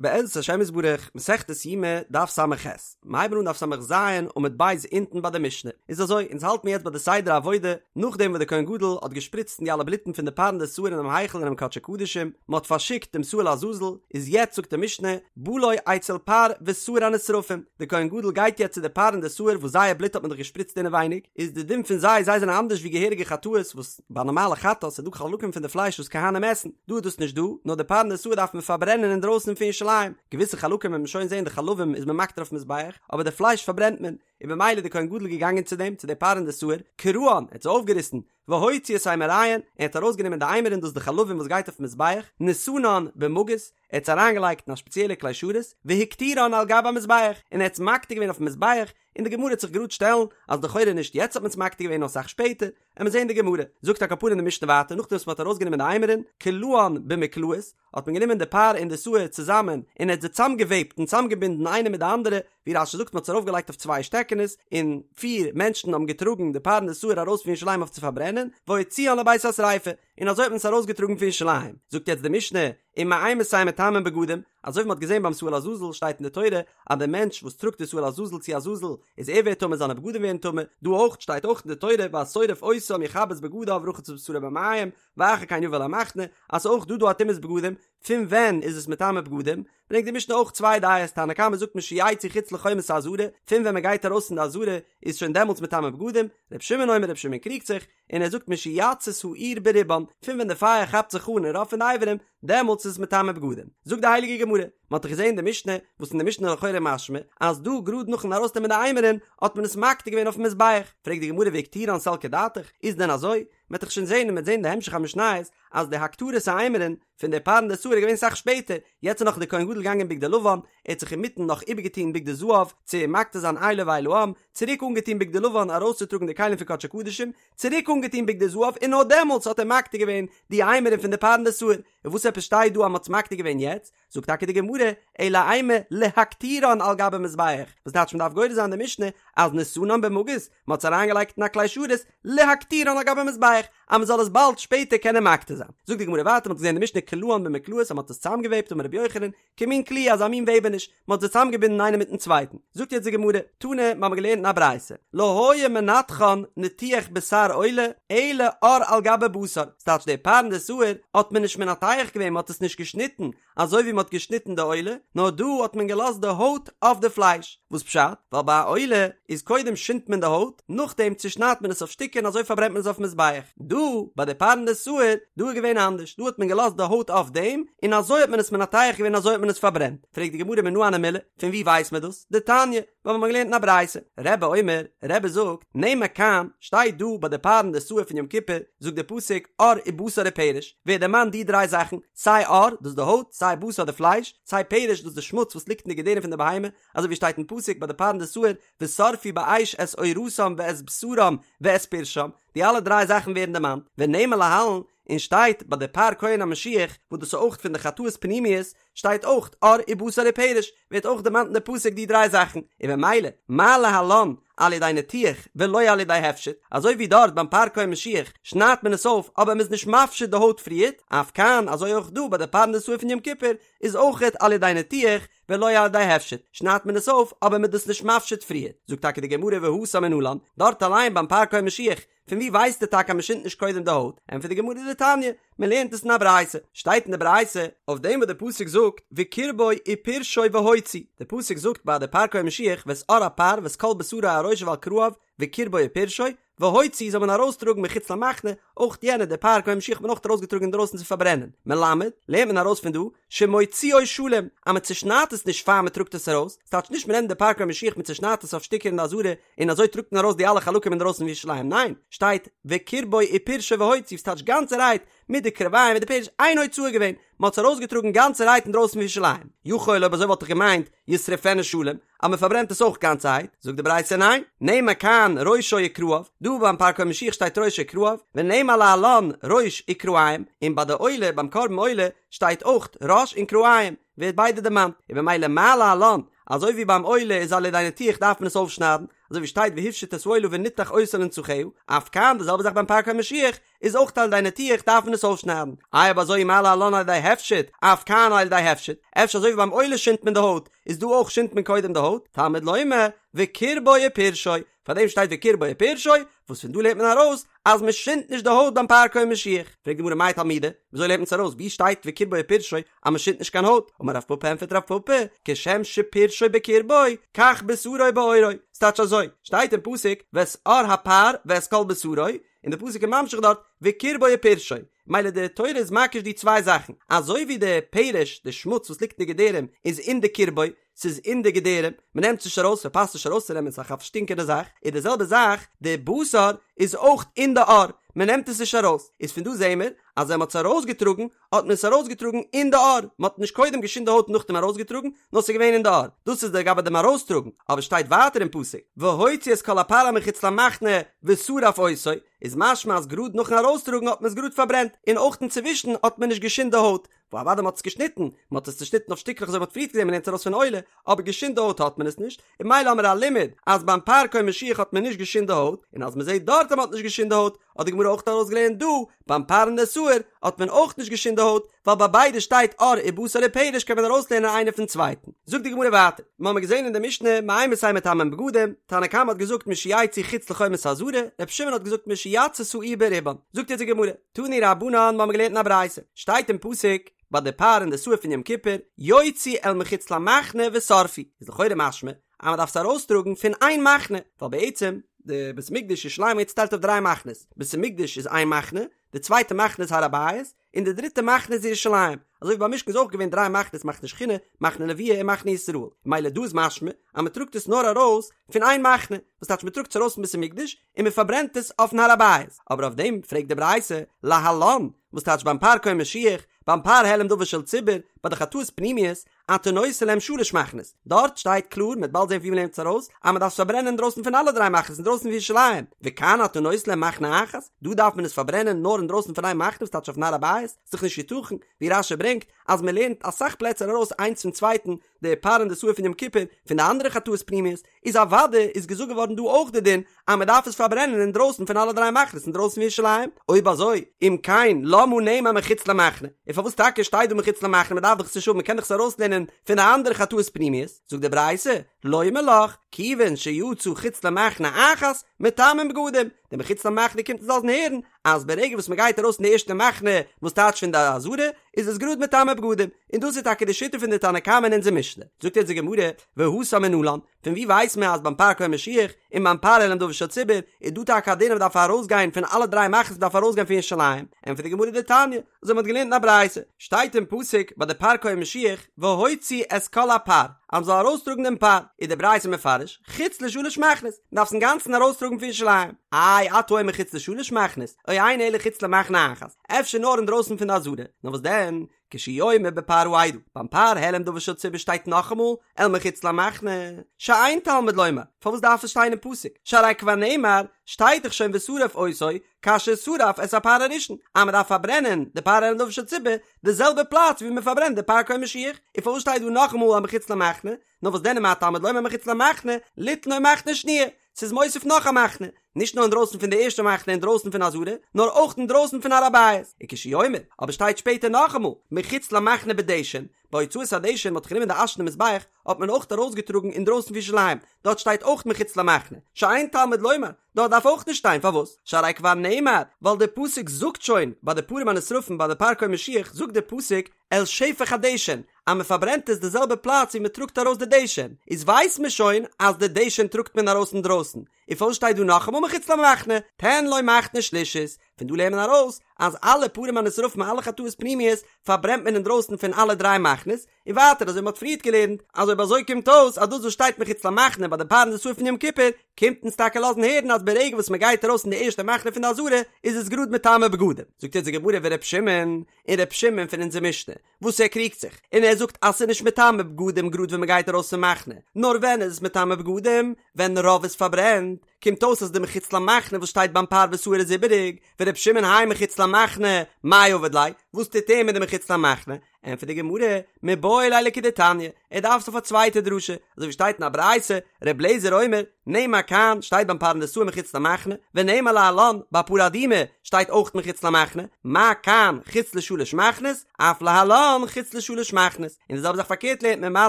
בעזרת השם יתברך, מסכת יומא, דף ס"ח, מיר הייבן אן דף ס"ז עמוד ב' אונטן ביי די משנה, איז אזוי, אונז האלט מיר יעצט ביי די סדר העבודה, נאכדעם וואס דער כהן גדול האט געשפריצט אין די אלע בלוטן פון די פר און די שעיר אינעם היכל אינעם קדשי קדשים, מען האט פארשיקט דעם שעיר לעזאזל, איז יעצט זאגט די משנה, בא לו אצל פר ושעיר הנשרפים, דער כהן גדול גייט יעצט צו די פר און די שעיר וואס זייער בלוט האט מען דאך געשפריצט אינעווייניג, איז די דין פון זיי, זיי זענען אנדערש ווי געהעריגע חטאות וואס. ביי נארמאלע חטאת איז דא חלקים פון די פלייש וואס כהנים עסן, דא איז דאס נישט דא, נאר די פר און די שעיר דארף מען פארברענען אינדרויסן פון ירושלים, געוויסע חלקים וועט מען שוין זען די חלבים איז מען מקטיר אויפן מזבח, אבער די פלייש פארברענט מען, און במילא די כהן גדול געגאנגען צו דעם, צו די פר און די שעיר, קרען, ער האט זיי אויפגעריסן, והוציא את אימוריהן, ער האט ארויסגענומען די אימורין דאס די חלבים וואס גייט אויפן מזבח, נתנן במגיס, ער האט עס אריינגעלייגט אין א שפעציעלע כלי שרת, והקטירן על גבי המזבח, און ער האט עס מקטיר געווען אויפן מזבח, און די גמרא וועט זיך גראד שטעלן אז לכאורה נישט יעצט האט מען עס מקטיר געווען נאר אסאך שפעטער, עמיר זעהן די גמרא, זאגט על כל פנים די משנה ווייטער נאכדעם וואס מען האט ארויסגענומען די אימורין, קלען במקלעות, האט מען גענומען די פר און די שעיר צוזאמען און ער האט זיי צוזאמגעוועבט און צוזאמגעבינדן איינע מיט די אנדערע, ווי רש"י זאגט מען האט עס ארויפגעלייגט אויף צוויי שטעקענעס, און פיר מענטשן האבן געטראגן די פר און די שעיר ארויס פון ירושלים אויף צו פארברענען, והוציאן לבית השריפה, און אזוי האט מען עס ארויסגעטראגן פון ירושלים, זאגט יעצט די משנה, ומאימתי מטמאין בגדים, אזוי ווי מ'האט געזען ביים שעיר לעזאזל שטייט אין די תורה אז דער מענטש וואס טראגט די שעיר לעזאזל צו עזאזל איז ער ווערט טמא זיינע בגדים ווערן טמא, דא אויך שטייט אויך אין די תורה והשורף אותם יכבס בגדיו ורחץ את בשרו במים ואחר כן יבא אל המחנה אז ס'איז אויך דא דא א טומאת בגדים, פון ווען איז עס מטמא בגדים? ברענגט די משנה אויך צוויי דעות, תנא קמא זאגט משיצאו חוץ לחומת העזרה, פון ווען מ'גייט ארויס פון די עזרה איז שוין דעמאלטס מטמא בגדים, ר' שמעון אומר ר' שמעון קריגט זיך, און ער זאגט משיצית האור ברובן, פון ווען די פייער כאפט זיך אן אין רוב פון די אברים, דעמאלטס איז עס מטמא בגדים. זאגט די הייליגע גמרא, מען האט דאך געזען די משנה, וואס אין די משנה איז לכאורה משמע, אז דא גראד נאכן ארויסנעמען די אימורין, האט מען עס מקטיר געווען אויפן מזבח. פרעגט די גמרא והקטירן סלקא דעתך, איז דען אזוי? מען וועט דאך שוין זען און מען וועט זען אין די המשך המשניות, אז די הקטרת האימורין פון די פר און די שעיר איז געווען אסאך שפעטער, יעצט איז נאך די כהן גדול געגאנגען אין בגדי לבן, ער האט זיך אינמיטן נאך איבערגעטון בגדי זהב צו מקטיר זיין איילו ואיל העם, צוריק אנגעטון בגדי לבן ארויסצוטראגן די כלים פון קדשי קדשים, צוריק אנגעטון בגדי זהב און נאר דעמאלטס האט ער מקטיר געווען די אימורין פון די פר און די שעיר, און וואס עפעס שטייט דא אז מען האט עס מקטיר געווען יעצט? זאגט טאקע די גמרא, אלא אימא להקטירן על גבי מזבח, וואס טייטש מען דארף גורס זיין די משנה אז נתנן במגיס, מען האט עס אריינגעלייגט אין א כלי שרת, להקטירן על גבי מזבח, אז מען זאל עס באלד שפעטער קענען מקטיר זיין. זאגט די גמרא ווייטער, מען האט געזען די משנה קלען במקלעות אז מען האט עס צוזאמגעוועבט אמר רבי יוחנן, כמין קליעה אזא מין וועבעניש, מען האט זיי צוזאמגעבינדן איינער מיטן צווייטן. זאגט יעצט די גמרא, תנא, מיר האבן געלערנט אין א ברייתא, לא היו מנתחן ניתוח בשר עולה, אלא עור על גבי בשר, ס'טייטש די פר און די שעיר האט מען נישט מנתח געווען, מען האט עס נישט געשניטן, אזוי ווי מען האט געשניטן די עולה, נאר דא האט מען געלאזט די הויט אויף די פלייש, וואס פשט? ווייל ביי א עולה איז קודם שינדט מען די הויט, נאכדעם צושניידט מען עס אויף שטיקער און אזוי פארברענט מען עס אויפן מזבח, דא ביי די פר און די שעיר, דא איז געווען אנדערש, דא האט מען געלאזט די הויט אויף דעם, און אזוי האט מען עס מנתח געווען אזוי האט מען עס פארברענט, פרעגט די גמרא מנא הני מילי, פון וואו ווייסט מען דאס? דתניא, ווייל מיר האבן געלערנט אין א ברייתא, רבי אומר, רבי זאגט, נאמר כאן, שטייט דא ביי די פר און די שעיר פון יום כיפור, זאגט דער פסוק, עור ובשר ופרש, ווערט דערמאנט די דריי זאכן, סיי עור, דאס די הויט, סיי בשר די פלייש, סיי פרש, דאס די שמוץ וואס ליגט אין די געדערים פון די בהמה, אזוי ווי שטייט אין פסוק ביי די פר און די שעיר, ושרפו באש את עורתם ואת בשרם ואת פרשם, די אלע דריי זאכן ווערן דערמאנט, ונאמר להלן, און שטייט ביי די פר כהן המשיח, וואס דאס איז אויך פון די חטאות פנימיות, שטייט אויך עור ובשר ופרש, ווערט אויך דערמאנט אין די פסוק די דריי זאכן, און במילא, מה להלן על ידי ניתוח ולא על ידי הפשט, אזוי ווי דארט ביים פר כהן משיח שניידט מען עס אויף אבער מ'איז נישט מפשיט די הויט פריערט, אף כאן אזוי אויך דא ביי די פר און די שעיר פון יום כיפור איז אויכעט על ידי ניתוח ולא על ידי הפשט, שניידט מען עס אויף אבער מ'איז דאס נישט מפשיט פריערט, זאגט טאקע די גמרא והתם מנלן, דארט אליין ביים פר כהן משיח פון ווי ווייסטו טאקע אז מען שינדט נישט קודם די הויט? ענטפערט די גמרא דתניא, מען לערנט עס אין א ברייתא, שטייט אין די ברייתא אויף דעם וואס די פסוק זאגט וקרבו ופרשו והוציא, די פסוק זאגט ביי די פר כהן משיח ואת עור הפר ואת כל בשרו על ראשו ועל כרעיו וקרבו ופרשו והוציא זאל מען ארויסטראגן מחוץ למחנה, אויך יענע די פר כהן משיח האט מען אויך ארויסגעטראגן אינדרויסן צו פארברענען, מלמד, לערנט מען ארויס פון דא, שמוציאו שלם, אז מען צושניידט עס נישט פאר מען טראגט עס ארויס, ס'טייטש נישט מען נעמט די פר כהן משיח מען צושניידט עס אויף שטיקער אין די עזרה און אזוי טראגט מען ארויס די אלע חלקים אינדרויסן פון ירושלים, ניין, שטייט וקרבו ופרשו והוציא, ס'טייטש גאנצערהייט מיט די קרביים מיט די פרש, איין הוצאה געווען, מען האט עס ארויסגעטראגן גאנצערהייט אינדרויסן פון ירושלים, יכול אויב אזוי וואלט איך געמיינט ישרפנו שלם, אז מען פארברענט עס אויך גאנצערהייט, זאגט די ברייתא ניין, נאמר כאן ראשו וכרעיו, דא ביים פר כהן משיח שטייט ראשו וכרעיו, ונאמר להלן ראש וכרעים, און ביי די עולה ביים קרבן עולה שטייט אויך ראש און כרעים, ווערט ביידע דערמאנט, און במילא מה להלן, אזוי ווי ביים עולה איז על ידי ניתוח דארף מען עס אויפשניידן, אזוי ווי שטייט והפשיט את העולה ונתח אותה לנתחיה, אף כאן די זעלבע זאך ביים פר כהן משיח, איז אויך על ידי ניתוח דארף מען עס אויפשניידן, איי אויב אזוי מה להלן על ידי הפשט, אף כאן על ידי הפשט, אפשר אזוי ווי ביים עולה שינדט מען די הויט, איז דא אויך שינדט מען קודם די הויט, תלמוד לומר, וקרבו ופרשו, פאר דעם שטייט וקרבו ופרשו, וואס פון דא לערנט מען ארויס אז מען שינדט נישט די הויט ביים פר כהן משיח. פרעגט די גמרא מאי תלמודא, וויאזוי לערנט מען עס ארויס, וואו שטייט וקרבו ופרשו אז מען שינדט נישט קיין הויט? אמר רב פפא ענטפערט רב פפא, כשם שפרשו בקרבו, כך בשרו בעורו, ס'טייטש אזוי, שטייט אין פסוק ואת עור הפר ואת כל בשרו, און די פסוק איז ממשיך דארט וקרבו ופרשו, מילא די תורה איז מקיש די צוויי זאכן, אזוי ווי די פרש, די שמוץ וואס ליגט אין די געדערים, איז אין די קרבו, ס'איז אין די געדערים, מ'נעמט עס נישט ארויס, ס'פאסט נישט ארויסצונעמען, ס'איז א פארשטינקענע זאך, איז די זעלבע זאך, די בשר איז אויך אין די עור, מ'נעמט עס נישט ארויס, איז פון דא זעהן מיר, אז ווען מ'האט עס ארויסגעטראגן, האט מען עס ארויסגעטראגן אין די עור, מ'האט נישט קודם געשינדט די הויט און נאכדעם ארויסגעטראגן, נאר ס'איז געווען אין די עור, דאס איז לגבי דעם ארויסטראגן, אבער שטייט ווייטער אין פסוק, והוציא את כל הפר אל מחוץ למחנה ושרף אותו, איז משמע אז גראד נאכן ארויסטראגן האט מען עס גראד פארברענט, און אויך אינצווישן האט מען נישט געשינדט די הויט, אוודאי מ'האט עס געשניטן, מ'האט עס צושניטן אויף שטיקלעך אזוי ווי מ'האט פריערט געזען מ'לערנט עס ארויס פון עולה, אבער געשינדט די הויט האט מען עס נישט, און מילא האמיר א לימוד אז ביים פר כהן משיח האט מען נישט געשינדט די הויט, און אז מ'זעט דארט אז מ'האט נישט געשינדט די הויט, האט די גמרא אויך ארויסגעלערנט דא, ביים פר און די שעיר האט מען אויך נישט געשינדט די הויט, ווייל ביי ביידע שטייט עור ובשר ופרש קען מען ארויסלערנען איינער פון צווייטן. זאגט די גמרא ווייטער, מ'האמיר געזען אין די משנה מאימתי מטמאין בגדים, תנא קמא האט געזאגט משיצאו חוץ לחומת העזרה, רבי שמעון האט געזאגט משיצתה העיר ברובן, זאגט אונז די גמרא, תנו רבנן מ'האמיר געלערנט אין א ברייתא, שטייט אין פסוק ביי די פר און די שעיר פון יום כיפור, יוציא אל מחוץ למחנה ושרפו, איז לכאורה משמע אז מ'דארף עס ארויסטראגן פון איין מחנה, ווייל בעצם די בית המקדש ירושלים איז צוטיילט אויף דריי מחנות, בית המקדש איז איין מחנה, די צווייטע מחנה איז הר הבית, און די דריטע מחנה איז ירושלים, אזוי ווי ביים משכן איז אויך געווען דריי מחנות מחנה שכינה, מחנה לוויה און מחנה ישראל, מילא דא איז משמע אז מ'טראגט עס נאר ארויס פון איין מחנה, וואס טייטש מ'טראגט עס ארויס פון בית המקדש און מ'פארברענט עס אויפן הר הבית, אבער אויף דעם פרעגט די ברייתא, להלן, וואס טייטש ביים פר כהן משיח, ביים פר העלם דבר של ציבור, ביי די חטאות פנימיות, אתה נותן להם שלש מחנות, דארט שטייט קלאר, מ'וועט באלד זען ווי מ'לערנט עס ארויס, אז מ'דארף עס פארברענען אינדרויסן פון אלע דריי מחנות אינדרויסן פון ירושלים, וכאן אתה נותן להם מחנה אחת, דא דארף מען עס פארברענען נאר אינדרויסן פון איין מחנה וואס טייטש אויפן הר הבית, ס'איז דאך נישט יתכן, ווי רש"י ברענגט, אז מ'לערנט אסאך פלעצער ארויס איינס פון צווייטן, די פר און די שעיר פון יום כיפור, פון די אנדערע חטאות פנימיות, איז אוודאי איז געזאגט געווארן דא אויך די דין אז מען דארף עס פארברענען אינדרויסן פון אלע דריי מחנות אינדרויסן פון ירושלים, אויב אזוי אם כן למה נאמר מחוץ למחנה, און פארוואס טאקע שטייט דא מחוץ למחנה מען דארף דאך עס נישט האבן מען קען דאך עס ארויסלערנען פון די אנדערע חטאות פנימיות, זאגט די ברייתא, לומר לך, כיוון שיצא חוץ למחנה אחת, מטמאין בגדים, די מחוץ למחנה קומט אונז לאזן הערן אז ברגע וואס מען גייט ארויס פון די ערשטע מחנה וואס טייטש פון די עזרה איז עס גראד מטמא בגדים, און דאס איז טאקע די שיטה פון די תנא קמא אין אונזער משנה, זאגט אונז די גמרא, והתם מנלן, פון ווי ווייסט מען אז ביים פר כהן משיח און ביים פר העלם דבר של ציבור איז דא טאקע א דין אז מען דארף ארויסגיין פון אלע דריי מחנות מען דארף ארויסגיין פון ירושלים, ענטפערט די גמרא דתניא, אזוי מען האט געלערנט אין א ברייתא, שטייט אין פסוק ביי די פר כהן משיח והוציא את כל הפר, אז מען זאל ארויסטראגן דעם פר, איז די ברייתא מפרש, חוץ לשלש מחנות, מען דארף עס אינגאנצן ארויסטראגן פון ירושלים, איי אתה אומר חוץ לשלש מחנות, או אינו אלא חוץ למחנה אחת, אפשר נאר אינדרויסן פון די עזרה, נאר וואס דען, כשהוא אומר בפר העדה, ביים פר העלם דבר של ציבור שטייט נאכאמאל אל מחוץ למחנה, שאין תלמוד לומר, פארוואס דארף עס שטיין אין פסוק, שהרי כבר נאמר, שטייט דאך שוין ושרף אותו, כאשר שרף את הפר הראשון, אז מען דארף פארברענען די פר העלם דבר של ציבור, די זעלבע פלאץ ווי מען פארברענט די פר כהן משיח, און פארוואס שטייט דא נאכאמאל אל מחוץ למחנה, נאר וואס דען מה תלמוד לומר מחוץ למחנה, ליתן לו מחנה שניה, ס'איז מוסיף נאך א מחנה, נישט נאר אינדרויסן פון די ערשטע מחנה אינדרויסן פון עזרה, נאר אויך אינדרויסן פון הר הבית, וכשהוא אומר, אבער שטייט שפעטער נאכאמאל, מחוץ למחנה בדשן, ביי הוצאת הדשן מ'האט גענומען די אש פון די מזבח, האט מען אויך ארויסגעטראגן אינדרויסן פון ירושלים, דארט שטייט אויך מחוץ למחנה, שאין תלמוד לומר, דארט דארף אויך נישט שטיין, פארוואס? שהרי כבר נאמר, ווייל דער פסוק זאגט שוין, ביי די פרים הנשרפים ביי די פר כהן משיח זאגט דער פסוק, אל שפך הדשן, אז מען פארברענט עס די זעלבע פלאץ ווי מען טראגט ארויס די דשן, איז ווייסט מען שוין אז די דשן טראגט מען ארויס אינדרויסן, און פארוואס שטייט דא נאכאמאל מחוץ למחנה, תן לו מחנה שלישית, פון דא לערנט מען ארויס אז אלע פרים הנשרפים אלע חטאות פנימיות פארברענט מען אינדרויסן פון אלע דריי מחנות, און ווייטער אזוי ווי מען האט פריערט געלערנט אז אויב אזוי קומט אויס אז דאס וואס שטייט מחוץ למחנה ביי די פר און די שעיר פון יום כיפור קומט אונז טאקע לאזן הערן אז ברגע וואס מען גייט ארויס אין די ערשטע מחנה פון די עזרה איז עס גראד מטמא בגדים, זאגט אונז די גמרא ור' שמעון און ר' שמעון פון אונזער משנה וואס ער קריגט זיך, און ער זאגט אז ס'איז נישט מטמא בגדים גראד ווען מ'גייט ארויס פון מחנה, נאר ווען איז עס מטמא בגדים? ווען רוב איז פארברענט, קומט אויס אז די מחוץ למחנה וואס שטייט ביים פר ושעיר איז איבעריג, ור' שמעון האי מחוץ למחנה, מאי עביד ליה, וואס טוט ער מיט די מחוץ למחנה? ענטפערט די גמרא, מיבעי ליה לכדתניא, ער דארף עס אויף א צווייטע דרשה, אזוי ווי שטייט אין א ברייתא, ר' אליעזר אומר, נאמר כאן, שטייט ביים פרנדסאי מחוץ למחנה, ונאמר להלן, ביי פרה אדומה, שטייט אויך מחוץ למחנה, מה כאן חוץ לשלש מחנות, אף להלן חוץ לשלש מחנות, און די זעלבע זאך פארקערט לערנט מען מה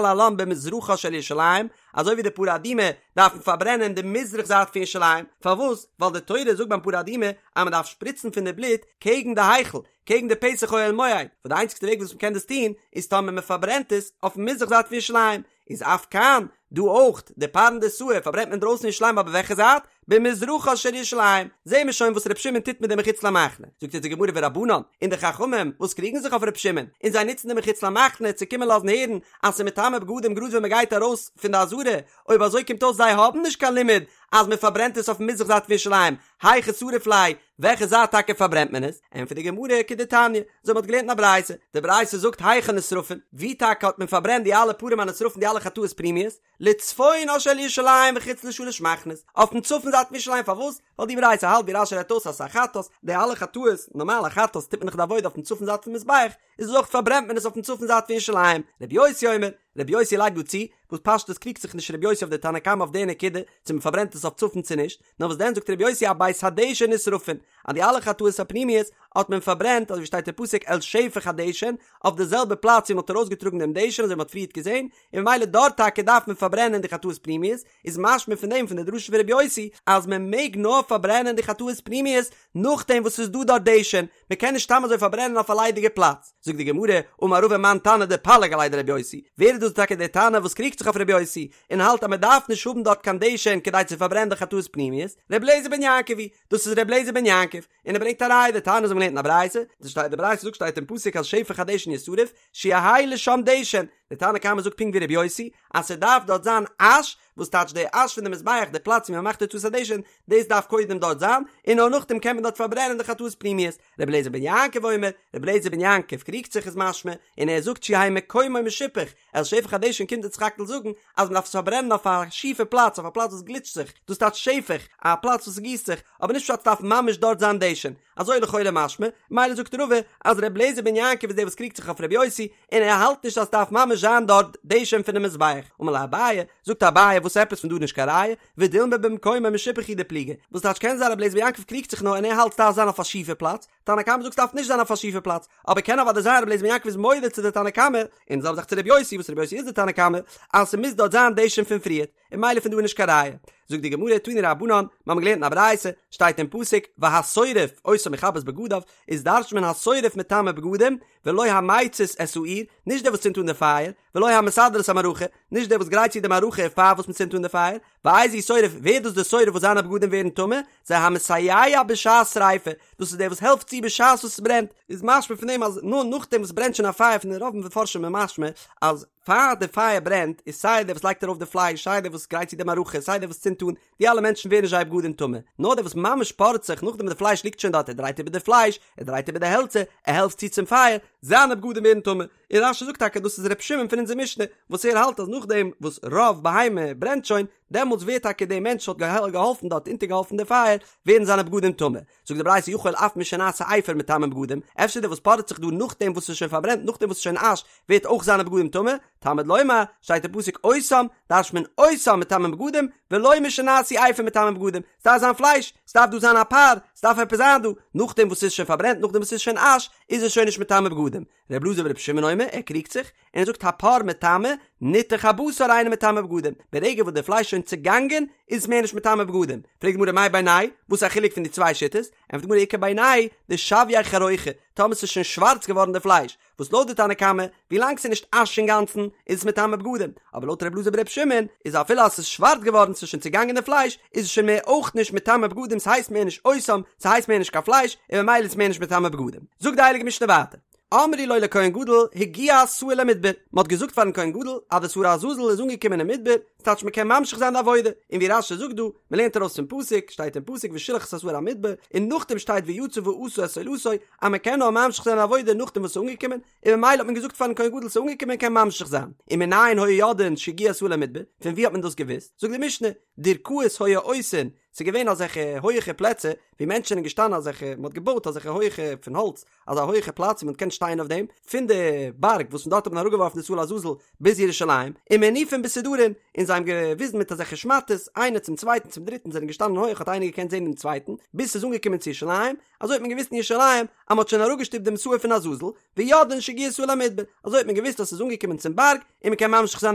להלן במזרחה של ירושלים, אזוי ווי די פרה אדומה דארף מען פארברענען די מזרח זייט פון ירושלים, פארוואס? ווייל די תורה זאגט ביים פרה אדומה אז מען דארף שפריצן פון די בלוט קעגן די היכל, קעגן די פתח אוהל מועד, וואס די איינציגסטע וועג וואס מען קען דאס טון איז טאמער מען פארברענט עס אויפן מזרח זייט פון ירושלים, איז אף כאן, דא אויך, די פרנדסאי פארברענט מען דרויסן ירושלים אבער וועלכע זייט? במזרחה של ירושלים, זעהן מיר שוין וואס ר' שמעון טוט מיט די מחוץ למחנה, זאגט אונז די גמרא ורבנן, און די חכמים וואס קריגן זיך אויף ר' שמעון, און זיי נוצן די מחוץ למחנה צו קומען לאזן הערן אז ס'איז מטמא בגדים גראד ווען מ'גייט ארויס פון די עזרה, אויב אזוי קומט אויס זיי האבן נישט קיין לימוד אז מ'פארברענט עס אויפן מזרח זייט פון ירושלים, היכא שריף ליה, וועלכע זייט טאקע פארברענט מען עס? ענטפערט די גמרא כדתניא, אזוי מ'האט געלערנט אין א ברייתא, די ברייתא זאגט היכן נשרפין, ווי טאקע האט מען פארברענט די אלע פרים הנשרפין די אלע חטאות פנימיות? לצפונה של ירושלים וחוץ לשלש מחנות, אויפן צפון זייט פון ירושלים, פארוואס? ווייל די ברייתא האלט ווי רש"י רעדט אויס אז ס'איז א חטאת, די אלע חטאות, נארמאל א חטאת טוט מען דאך די עבודה אויפן צפון זייט פון מזבח, איז אויך פארברענט מען עס אויפן צפון זייט פון ירושלים, רבי יוסי אומר, רבי יוסי לייגט דא צו, וואס פשטות קריגט זיך נישט רבי יוסי אויף די תנא קמא אויף די נקודה, צו מען פארברענט עס אויף צפון צו נישט, נאר וואס דען זאגט רבי יוסי אבית הדשן נשרפין, אז די אלע חטאות הפנימיות האט מען פארברענט אזוי ווי שטייט אין פסוק אל שפך הדשן, אויף די זעלבע פלאץ ווי מען האט ארויסגעטראגן דעם דשן אזוי ווי מען האט פריערט געזען, און ממילא דארט טאקע דארף מען פארברענען די חטאות פנימיות, איז משמע פון דעם פון די דרשה פון רבי יוסי אז מען מעג נאר פארברענען די חטאות פנימיות נאכדעם וואס ס'איז דא דארט דשן, מען קען נישט סתם אזוי פארברענען אויף א ליידיגע פלאץ. זאגט די גמרא, אמר רבא מאן תנא דפליג עליה דרבי יוסי, ווער איז דאס טאקע דער תנא וואס קריגט זיך אויף רבי יוסי און האלט אז מען דארף נישט האבן דארט קיין דשן כדי צו פארברענען די חטאות פנימיות, רבי אליעזר בן יעקב היא, דאס איז רבי אליעזר בן יעקב, און ער ברענגט א ראיה דתניא אזוי מ'האט געלערנט אין א ברייתא, די ברייתא זאגט שטייט אין פסוק אל שפך הדשן ישרף, שיהא לשם דשן, די תנא קמא זאגט פונקט ווי רבי יוסי, אז ס'דארף דארט זיין אש, וואס טייטש די אש פון די מזבח, די פלאץ ווי מ'מאכט הוצאת הדשן, דאס דארף קודם דארט זיין, און נאר נאכדעם קען מען דארט פארברענען די חטאות פנימיות. רבי אליעזר בן יעקב אומר, רבי אליעזר בן יעקב קריגט זיך איז משמע, און ער זאגט שיהא מקומו משופך, אל שפך הדשן קומט אונז סך הכל זאגן אז מ'דארף עס פארברענען אויף א שיפע פלאץ, אויף א פלאץ וואס גליטשט זיך, דאס טייטש שפך, א פלאץ וואס גיסט זיך, אבער נישט פשט ס'דארף ממש דארט זיין דשן. אזוי לכאורה משמע, מילא זאגט רבא אז ר' אליעזר בן יעקב איז דער וואס קריגט זיך אויף ר' יוסי, און ער האלט נישט אז ס'דארף ממש זיין דארט דשן פונעם מזבח. אמר ליה אביי, זאגט אביי וואס עפעס פון דא נישט קיין ראיה, ודילמא במקומו משופך הוא דפליגי, וואס טייטש קען זיין ר' אליעזר בן יעקב קריגט זיך נאר און ער האלט ס'דארף זיין אויף א שיפע פלאץ, תנא קמא זאגט ס'דארף נישט זיין אויף א שיפע פלאץ, אבער קען אוודאי זיין ר' אליעזר בן יעקב איז מודה צו די תנא קמא, און זעלבע זאך צו ר' יוסי וואס ר' יוסי איז די תנא קמא, אז ס'מוז דארט זיין דשן פון פריערט. און מילא פון דא איז נישט קיין ראיה. זאגט די גמרא, תנו רבנן, מיר האבן געלערנט אין א ברייתא, שטייט אין פסוק, והשורף אותם יכבס בגדיו, איז דרש'נט מען השורף מטמא בגדים, ולא המצית את האור, נישט דער וואס צינדט אן די פייער, ולא המסדר את המערכה, נישט דער וואס גרייט צו די מערכה פאר וואס מען צינדט אן די פייער, ואיזהו שורף, ווער איז דאס דער שורף וואס זיינע בגדים ווערן טמא, זה המסייע בשעת שריפה, דאס איז דער וואס העלפט צו בשעת וואס עס ברענט, איז משמע פון דעם אז נאר נאכדעם וואס ברענט שוין א פייער פון די רוב מפרשים איז משמע אז פאר די פייער ברענט איז סיי דער וואס לייגט ארויף די פלייש סיי דער וואס גרייט צו די מערכה סיי דער וואס צינדט אן די אלע מענטשן ווערן נישט זייער בגדים טמא נאר דער וואס ממש פארעט זיך נאכדעם וואס די פלייש ליגט שוין דארט ער דרייט איבער די פלייש ער דרייט איבער די העלצער ער העלפט צו צום פייער זיינע בגדים ווערן טמא און רש"י זאגט טאקע דאס איז ר' שמעון פון אונזער משנה וואס ער האלט אז נאכדעם וואס רוב בהמה ברענט שוין דעמאלטס ווערט טאקע דער מענטש וואס האט געהאלפן דארט אונטערגעהאלפן די פייער ווערן זיינע בגדים טמא זאגט די ברייתא יכול אף משנעשה אפר מטמאין בגדים, אפשר דער וואס פארעט זיך דא נאכדעם וואס ס'איז שוין פארברענט נאכדעם וואס ס'איז שוין אש ווערט אויך זיינע בגדים טמא, תלמוד לומר, שטייט אין פסוק אותם, דרש'נט מען אותם מטמאין בגדים, ולא משנעשו אפר מטמאין בגדים, ס'דארף זיין פלייש, ס'דארף דא זיין א פר, ס'דארף עפעס זיין דא, נאכדעם וואס ס'איז שוין פארברענט נאכדעם וואס ס'איז שוין אש, איז עס שוין נישט מטמא בגדים. ר' אלעזר בר' שמעון אומר, ער קריגט זיך, און ער זאגט הפר מטמא, ניתוך הבשר אינו מטמא בגדים, ברגע וואס די פלייש איז שוין צעגאנגען, איז עס מער נישט מטמא בגדים. פרעגט די גמרא מאי בינייהו, וואס איז א חילוק פון די צוויי שיטות? ענטפערט די גמרא איכא בינייהו, דשויה חרוכא, טאמער ס'איז שוין שווארץ געווארן די פלייש, וואס לויט די תנא קמא, ווילאנג ס'איז נישט אש אינגאנצן, איז עס מטמא בגדים, אבער לויט ר' אלעזר בר' שמעון, איז אפילו אז ס'איז שווארץ געווארן, ס'איז שוין צעגאנגען די פלייש, איז עס שוין מער אויך נישט מטמא בגדים, ס'הייסט מער נישט אותם, ס'הייסט מער נישט קיין פלייש, און ממילא איז עס מער נישט מטמא בגדים. זאגט די הייליגע משנה ווייטער. אמרו לו לכהן גדול הגיע השעיר למדבר, מען האט געזאגט פארן כהן גדול אז די שעיר לעזאזל איז אנגעקומען אין מדבר, ס'טייטש מען קען ממשיך זיין די עבודה, און ווי רש"י זאגט דא, מען לערנט ארויס פון פסוק, שטייט אין פסוק ושלח את השעיר המדבר, און נאכדעם שטייט ויצא ועשה את עולתו, אז מען קען נאר ממשיך זיין די עבודה נאכדעם וואס ס'איז אנגעקומען, און ממילא האט מען געזאגט פארן כהן גדול ס'איז אנגעקומען מען קען ממשיך זיין, ומנין היו יודעין שהגיע השעיר למדבר, פון ווי האט מען דאס געוואוסט? זאגט די משנה. דירכאות היו עושין, ס'איז געווען אזעלכע הויעכע פלעצער ווי מענטשן זענען געשטאנען אזעלכע, מ'האט געבויט אזעלכע הויעכע פון האלץ, אזא הויעכע פלאץ ווי מ'האט געקענט שטיין אויף דעם, פון די בארג וואס פון דארט האט מען אראפגעווארפן די שעיר לעזאזל ביז ירושלים, ומניפין בסודרין, און זיי האבן געוויזן מיט אזעלכע שמאטעס, איינער צום צווייטן צום דריטן זענען געשטאנען הויעך האט איינער געקענט זען דעם צווייטן, ביז ס'איז אנגעקומען צו ירושלים, אזוי האט מען געוואוסט אין ירושלים אז מ'האט שוין אראפגעשטופט דעם שעיר פון עזאזל, ויודעין שהגיע שעיר למדבר, אזוי האט מען געוואוסט אז ס'איז אנגעקומען צום בארג און מ'קען ממשיך זיין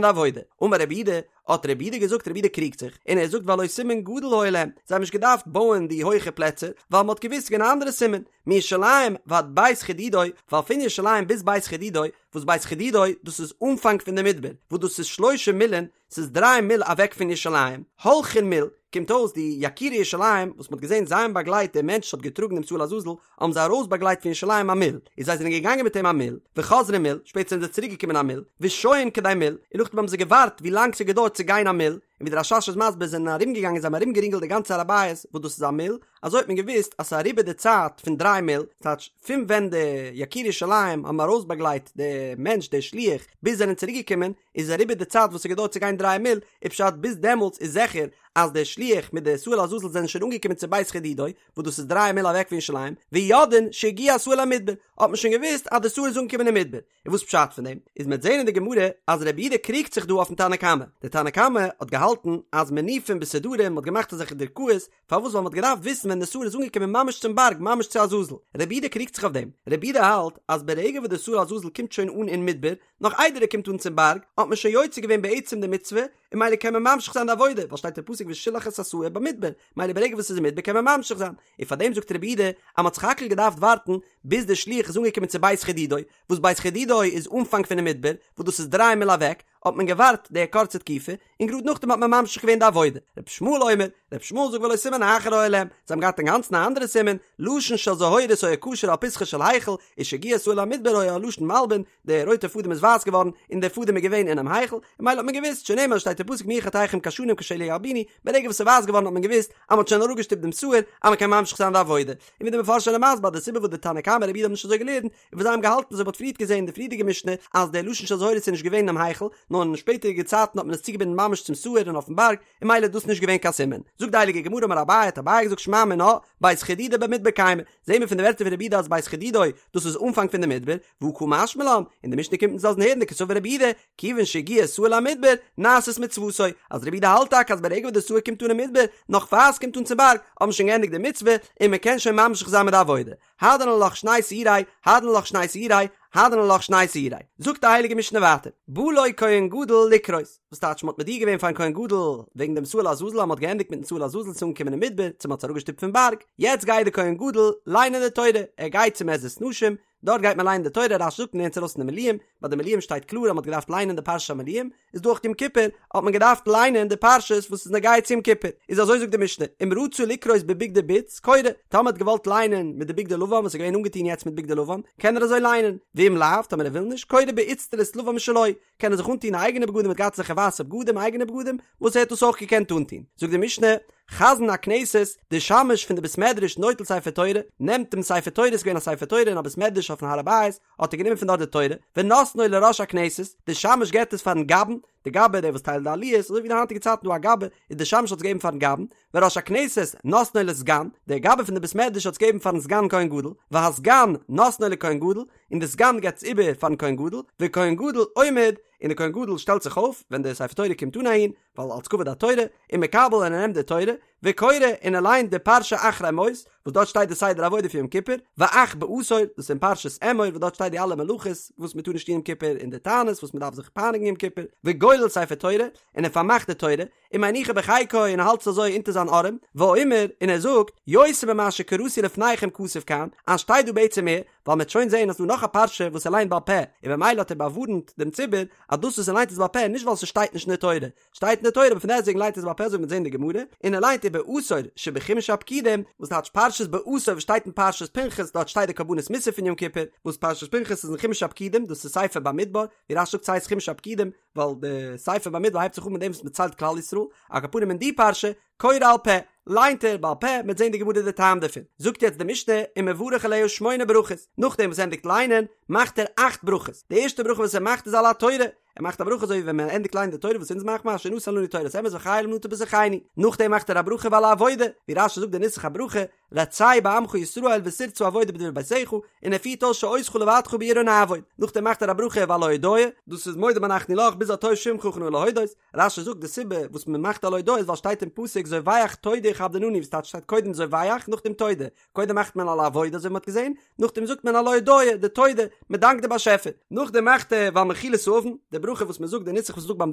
די עבודה. אמר רבי יהודה, האט רבי יהודה געזאגט, רבי יהודה קריגט זיך, און ער זאגט והלא סימן גדול היה להם, זיי האבן נישט געדארפט בויען די הויכע פלעצער, ווייל מ'האט געוואוסט ס'איז געווען א אנדערע סימן, מירושלים ועד בית חדודו, ווייל פון ירושלים ביז בית חדודו, וואס בית חדודו דאס איז אנפאנג פון די מדבר, וואס דאס איז שלושה מילין, ס'איז דריי מיל אוועק פון ירושלים, הולכין מיל, קומט אויס די יקירי ירושלים וואס מ'האט געזען זיי האבן באגלייט דער מענטש וואס האט געטראגן דעם שעיר לעזאזל, האבן זיי ארויסבאגלייט פון ירושלים א מיל, און זיי זענען געגאנגען מיט אים א מיל, וחוזרין מיל, שפעטער זענען זיי צוריק געקומען א מיל, ושוהין כדי מיל, און נאכדעם האבן זיי געווארט ווי לאנג ס'האט געדויערט צו גיין א מיל, און ווי דער רש"ש איז מסביר זענען ארום געגאנגען זיי האבן ארום גערינגלט די גאנצע הר הבית וואס דאס איז א מיל, אזוי האט מען געוואוסט אז ס'איז אריבער די צייט פון דריי מיל, ס'טייטש פון ווען די יקירי ירושלים האבן ארויסבאגלייט די מענטש דער שליח ביז זענען צוריק געקומען, איז אריבער די צייט וואס ס'האט געדויערט צו גיין דריי מיל, איז פשט ביז דעמאלטס איז זיכער אז דער שליח מיט די שעיר לעזאזל זענען שוין אנגעקומען צו בית חדודו, וואס דאס איז דריי מיל אוועק פון ירושלים, ויודעין שהגיע השעיר למדבר, האט מען שוין געוואוסט אז די שעיר איז אנגעקומען אין מדבר. און וואס פשט פון דעם? איז מ'עט זעהן אין די גמרא אז רבי יהודה קריגט זיך דא אויפן תנא קמא, דער תנא קמא האט געהאלטן אז מניפין בסודרים מ'האט געמאכט אזעלכע דירכאות, פארוואס ווייל מ'האט געדארפט וויסן ווען די שעיר איז אנגעקומען ממש צום בארג ממש צו עזאזל, רבי יהודה קריגט זיך אויף דעם, רבי יהודה האלט אז ברגע וואס די שעיר לעזאזל קומט שוין אן אין מדבר, נאך איידער ער קומט אן צום בארג, האט מען שוין יוצא געווען בעצם די מצוה, און ממילא קען מען ממשיך זיין די עבודה, ווייל שטייט אין פסוק ושלח את השעיר במדבר, ממילא ברגע וואס ס'איז אין מדבר קען מען ממשיך זיין, און פארדעם זאגט רבי יהודה אז מ'האט סך הכל געדארפט ווארטן ביז דער שליח איז אנגעקומען צו בית חדודו, וואס בית חדודו איז אנפאנג פונעם מדבר, וואס דאס איז דריי מיל אוועק, האט מען געווארט די קורצע תקופה, און גראד נאכדעם האט מען ממשיך געווען די עבודה. רבי ישמעאל אומר, רבי ישמעאל זאגט והלא סימן אחר היה להם, זיי האבן געהאט אינגאנצן א אנדערע סימן, לשון של זהורית היה קשור על פתחו של היכל, ומשהגיע השעיר למדבר היה הלשון מלבין, די רויטע פאדעם איז ווייס געווארן, און דער פאדעם איז געווען אינעם היכל, און ממילא האט מען געוואוסט, שנאמר שטייט אין פסוק אם יהיו חטאיכם כשנים כשלג ילבינו, ברגע וואס ס'איז ווייס געווארן האט מען געוואוסט אז מ'האט שוין אראפגעשטופט דעם שעיר, אז מ'קען ממשיך זיין די עבודה. און ווי די מפרשים זענען מסביר אז די סיבה וואס די תנא קמא רבי יהודה האבן נישט אזוי געלערנט, איז ווייל זיי האבן געהאלטן אזוי ווי מ'האט פריערט געזען אין די פריערדיגע משנה, אז דער לשון של זהורית איז נישט געווען אינעם היכל, נאר אין שפעטערדיגע צייטן האט מען עס צוגעבינדן ממש צום שעיר און אויפן בארג, און ממילא איז דאס נישט געווען קיין סימן. זאגט די הייליגע גמרא אמר אביי, האט אביי געזאגט שמע מינה, בית חדודו במדבר קיימא, זעהן מיר פון די ווערטער פון רבי יהודה אז בית חדודו, דאס איז אנפאנג פון די מדבר, והא קא משמע לן, און די משנה קומט אונז לאזן הערן דקסבר רבי יהודה, כיוון שהגיע שעיר למדבר, נעשית מצוותו, אז רבי יהודה האלט טאקע אז ברגע וואס די שעיר קומט אן אין מדבר, נאך פאר עס קומט אן צום בארג, האט מען שוין געענדיגט די מצוה, און מען קען שוין ממשיך זיין מיט די עבודה. הדרן עלך שני שעירי, הדרן עלך שני שעירי, הדרן עלך שני שעירי. זאגט די הייליגע משנה ווייטער, בא לו כהן גדול לקרות, וואס טייטש מ'האט מודיע געווען פארן כהן גדול וועגן דעם שעיר לעזאזל אז מ'האט געענדיגט מיטן שעיר לעזאזל ס'איז אנגעקומען אין מדבר, צו מ'האט עס אראפגעשטופט פון בארג, יעצט גייט דער כהן גדול ליינען די תורה, ער גייט צום עזרת נשים, דארט גייט מען ליינען די תורה, רש"י זאגט מ'לערנט עס ארויס אין די מילואים, ביי די מילואים שטייט קלאר אז מ'האט געדארפט ליינען די פרשת המילואים, איז דא אויך יום כיפור האט מען געדארפט ליינען די פרשות וואס איז נוגע צו יום כיפור, איז אזוי זאגט די משנה, אם רצה לקרות בבגדי בוץ, קורא, טאמער האט געוואלט ליינען מיט די בגדי לבן וואס איז געווען אנגעטון יעצט מיט בגדי לבן, קען ער אזוי ליינען, ואם לאו, טאמער ער וויל נישט, קורא באיצטלית לבן משלו, קען ער זיך אנטון אייגענע בגדים, ער האט געהאט אזעלכע ווייסע בגדים, אייגענע בגדים, וואס ער האט דאס אויך געקענט אנטון. זאגט די משנה, חזן הכנסת, די שמש פון די בית מדרש נוטל ספר תורה, נעמט דעם ספר תורה, ס'איז געווען א ספר תורה אין א בית מדרש אויפן הר הבית, האט ער גענומען פון דארט די תורה, ונותנו לראש הכנסת, די שמש געבט עס פארן גבאי'ן, די גבאי דער וואס טיילט די עליות, אזוי ווי די היינטיגע צייטן דא א גבאי, איז די שמש האט עס געגעבן פארן גבאי'ן, וראש הכנסת נותנו לסגן, דער גבאי פון די בית מדרש האט עס געגעבן פארן סגן כהן גדול, והסגן נותנו לכהן גדול, און די סגן געבט עס איבער פארן כהן גדול, וכהן גדול עומד, און דער כהן גדול שטעלט זיך אויף ווען די ספר תורה קומט אן אהין, ווייל אלס כבוד התורה, ומקבל און ער נעמט די תורה, וקורא און ער ליינט די פרשה אחרי מות, וואס דארט שטייט די סדר עבודה פון יום כיפור, ואך בעשור, דאס איז אין פרשת אמור וואס דארט שטייט די אלע מלאכות וואס מען טאר נישט טון יום כיפור און די תענית וואס מען דארף זיך פייניגן יום כיפור, וגולל ספר תורה, און ער פארמאכט די תורה, ומניחה בחיקו און ער האלט עס אזוי אונטער זיין ארעם, ואומר, און ער זאגט, יותר ממה שקראתי לפניכם כתוב כאן, אז שטייט דא בעצם מער, ווייל מ'עט שוין זעהן אז ס'דא נאך א פרשה וואס ער ליינט בעל פה, און במילא האט ער באווארנט דעם ציבור אז דאס וואס ער ליינט איז בעל פה נישט ווייל ס'שטייט נישט אין די תורה, שטייט אין די תורה אבער פון דעסטוועגן ליינט ער עס בעל פה אזוי ווי מ'עט זעהן אין די גמרא, און ער ליינט ובעשור שבחומש הפקודים, וואס טייטש פרשת בעשור וואס שטייט אין פרשת פנחס דארט שטייט די קרבנות מוסף פון יום כיפור, וואס פרשת פנחס איז אין חומש הפקודים דאס איז ספר במדבר, ווי רש"י זאגט ס'הייסט חומש הפקודים ווייל די ספר במדבר הייבט זיך אן מיט דעם וואס מ'ציילט כלל ישראל, על כל פנים אין די פרשה קורא על פה, ליינט ער בעל פה, מ'עט זען די גמרא די טעם דערפון. זאגט יעצט די משנה, ומברך עליה שמונה ברכות, נאכדעם וואס ער ענדיגט ליינען, מאכט ער אכט ברכות, די ערשטע ברכה וואס ער מאכט איז על התורה, ער מאכט א ברכה אזוי ווי ווען מען ענדיגט ליינען די תורה וואס אונז מאכט מען אשר נתן לנו תורת אמת וחיי עולם נטע בתוכנו, נאכדעם מאכט ער א ברכה ועל העבודה, ווי רש"י זאגט די נוסח הברכה, רצה בעמך ישראל ותרצה עבודה בדברי ביתך, און ער פירט אויס שאותך לבדך ביראה נעבוד, נאכדעם מאכט ער א ברכה ועל ההודאה, דאס איז מודים אנחנו לך ביז הטוב שמך וכנאה להודות, רש"י זאגט די סיבה וואס מען מאכט על ההודאה איז ווייל שטייט אין פסוק זובח תודה יכבדננו וואס טייטש שטייט קודם זובח נאכדעם תודה, קודם מאכט מען על העבודה אזוי ווי מען האט געזען, נאכדעם זאגט מען על ההודאה, די תודה, מען דאנקט די באשעפער, נאכדעם מאכט ער ועל מחילת העוון, די ברכה וואס מען זאגט די נוסח וואס מען זאגט ביים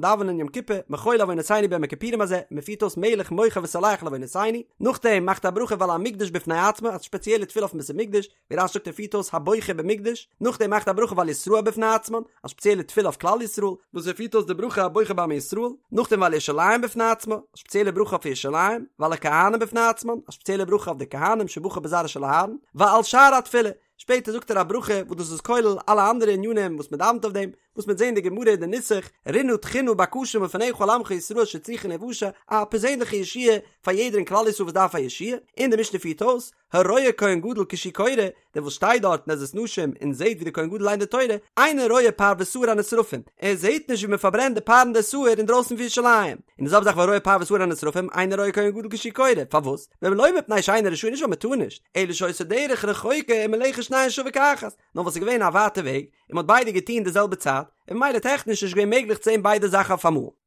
דאווענען יום כיפור, מחול לעוונותינו ביום הכיפורים הזה, מען פירט אויס מלך מוחל וסולח לעוונותינו, נאכדעם מאכט ער א ברכה ועל המקדש בפני עצמו, א ספעציעלע תפילה אויפן בית המקדש, ווי רש"י זאגט ער פירט אויס הבוחר במקדש, נאכדעם מאכט ער א ברכה ועל ישראל בפני עצמן, א ספעציעלע תפילה אויף כלל ישראל, וואס ער פירט אויס די ברכה הבוחר בעמו ישראל, נאכדעם ועל ירושלים בפני עצמה, א ספעציעלע ברכה אויף ירושלים, ועל הכהנים בפני עצמן, א ספעציעלע ברכה אויף די כהנים שבחר בזרעו של אהרן, ועל שאר התפילה, שפעטער זאגט ער א ברכה וואס דאס איז כולל אלע אנדערע ענינים וואס מען דאווענט אויף דעם, וואס מ'וועט זען אין די גמרא אין די נוסח, רינה תחינה בקשה מלפניך על עמך ישראל שצריכין להושע, א פערזענליכע ישועה פאר יעדער אין כלל ישראל וואס דארף א ישועה, און די משנה פירט אויס, הרואה כהן גדול כשהוא קורא, דער וואס שטייט דארט אין עזרת נשים און זעט ווי דער כהן גדול ליינט די תורה, אינו רואה פר ושעיר הנשרפים, ער זעט נישט ווי מען פארברענט די פר און די שעיר אינדרויסן פון ירושלים. און די זעלבע זאך והרואה פר ושעיר הנשרפים, אינו רואה כהן גדול כשהוא קורא, פארוואס? ולא מפני שאינו רשאי נישט ווייל מען טאר נישט, אלא שהיתה דרך רחוקה ומלאכת שניהן שווה כאחת, נאר ווייל ס'איז געווען א ווייטע וועג, און מען האט ביידע געטון די זעלבע צייט, און ממילא טעכניש נישט געווען מעגליך צו זען ביידע זאכן אויפאמאל.